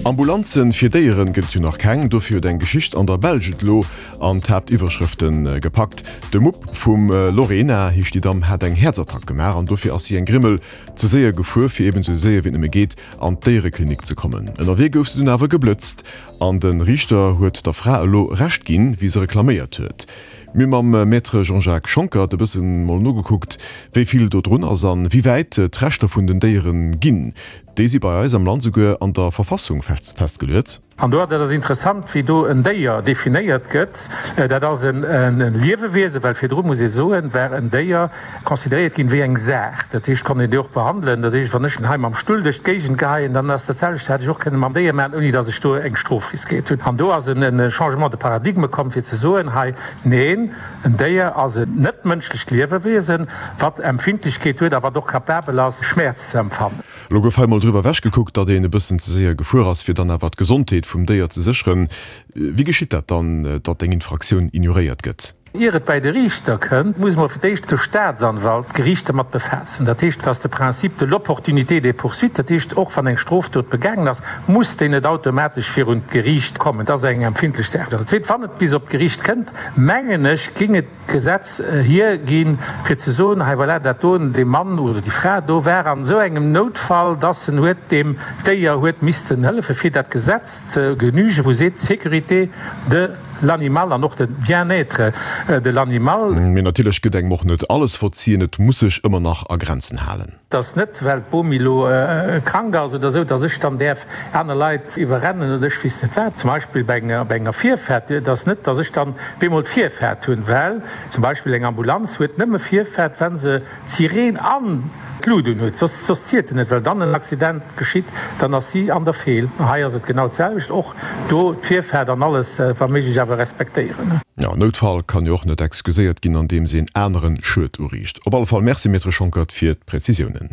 Ambulanzen fir Déieren gëtt et jo nach keng, dofir huet eng Geschicht an der Belsch et elo an d'Haaptiwwerschrëfte gepackt. De Mupp vum Lorena, heescht déi Damm, hat eng Häerzattack gemaach an dofir ass si eng Grimmel ze séier gefuer, fir eben esou séier wéi et nëmme geet an d'Déiereklinik ze kommen. Ënnerwee gouf se dunn awer geblëtzt an de Riichter huet der Fra elo Recht ginn, wéi se reklaméiert huet. Mir hu mam Maître Jean-Jacques Schonckert e bëssen mol nogekuckt, wéi vill do drun ass an wéi wäit d'Rechter vun den Déieren ginn. Déi si bei eis am Land souguer an der Verfassung festgeluet. An do, dat ass interessant, wéi do en Déier definéiert gëtt, dat ass e Liewewiesen, well virdru, muss ee soen, war en Déier consideréiert ginn wéi eng Saach. Dat heescht, konnt een déi och behandelen. Dat heescht, wann ech hei mam Stull duerch d'Géigend geheien, dann ass dat selwecht, hätt ech och kënne mam Déier maachen, ouni datt ech do eng Strof riskéiert hunn. An do ass e Changement de paradigme komm, fir ze soen, hei, neen, en Déier ass en net-mënschlecht Liewewiesen, wat Empfindlechkeet huet a wat och capabel ass, Schmäerz ze empfannen. Elo gouf hei mol driwwer ewech gekuckt, datt een e bëssen ze séier gefuer ass, fir dann awer d'Gesondheet vum Déier ze sécheren. Wéi geschitt dat dann, datt eng Infraktioun ignoréiert gëtt? Ier et bäi de Riichter kënnt, muss mol fir d'éischt de Staatsanwalt d'Geriicht dermat befaassen. Dat heescht, et ass de Principe de l'opportunité des poursuites, dat heescht, och wann eng Strofdot begaangen ass, muss déi net automatesch virun d'Geriicht kommen. Dat ass eng empfindlech Saach. An dat Zweet, wann et bis op d'Geriicht kënnt, mengen ech, géing et, Gesetz hierginn, fir ze soen, hei voilà, dat do, dee Mann oder déi Fra do war an esou engem Noutfall, dass en huet deem Déier huet missten hëllefen, fir dat Gesetz ze genügen, wou seet, sécurité de l'animal an och de bien-être de l'animal. Mee natierlech gëtt engem och net alles verzien, et muss sech ëmmer nach a Grenzen halen. Et ass net, well d'Bomi elo krank ass oder esou, dass ech dann däerf aner Leit iwwerrennen oder ech weess net wat. Zum Beispill bei enger Virfaart. Et ass net, dass ech dann op eemol d'Virfaart hunn, well zum Beispill eng Ambulanz huet nëmme Virfaart, wa se d'Sireen an d'Lut un huet. Soss soss zielt en net, well dann en Accident geschitt, dann ass si an der Feel. Hei ass et genau d'selwecht, och do d'Virfaart an alles wa méiglech awer respektéieren. Jo, Noutfall kann jo och net excuséiert ginn andeems een aneren Schued uriicht. Op alle Fall Merci Maître Schonckert fir d'Präzisiounen.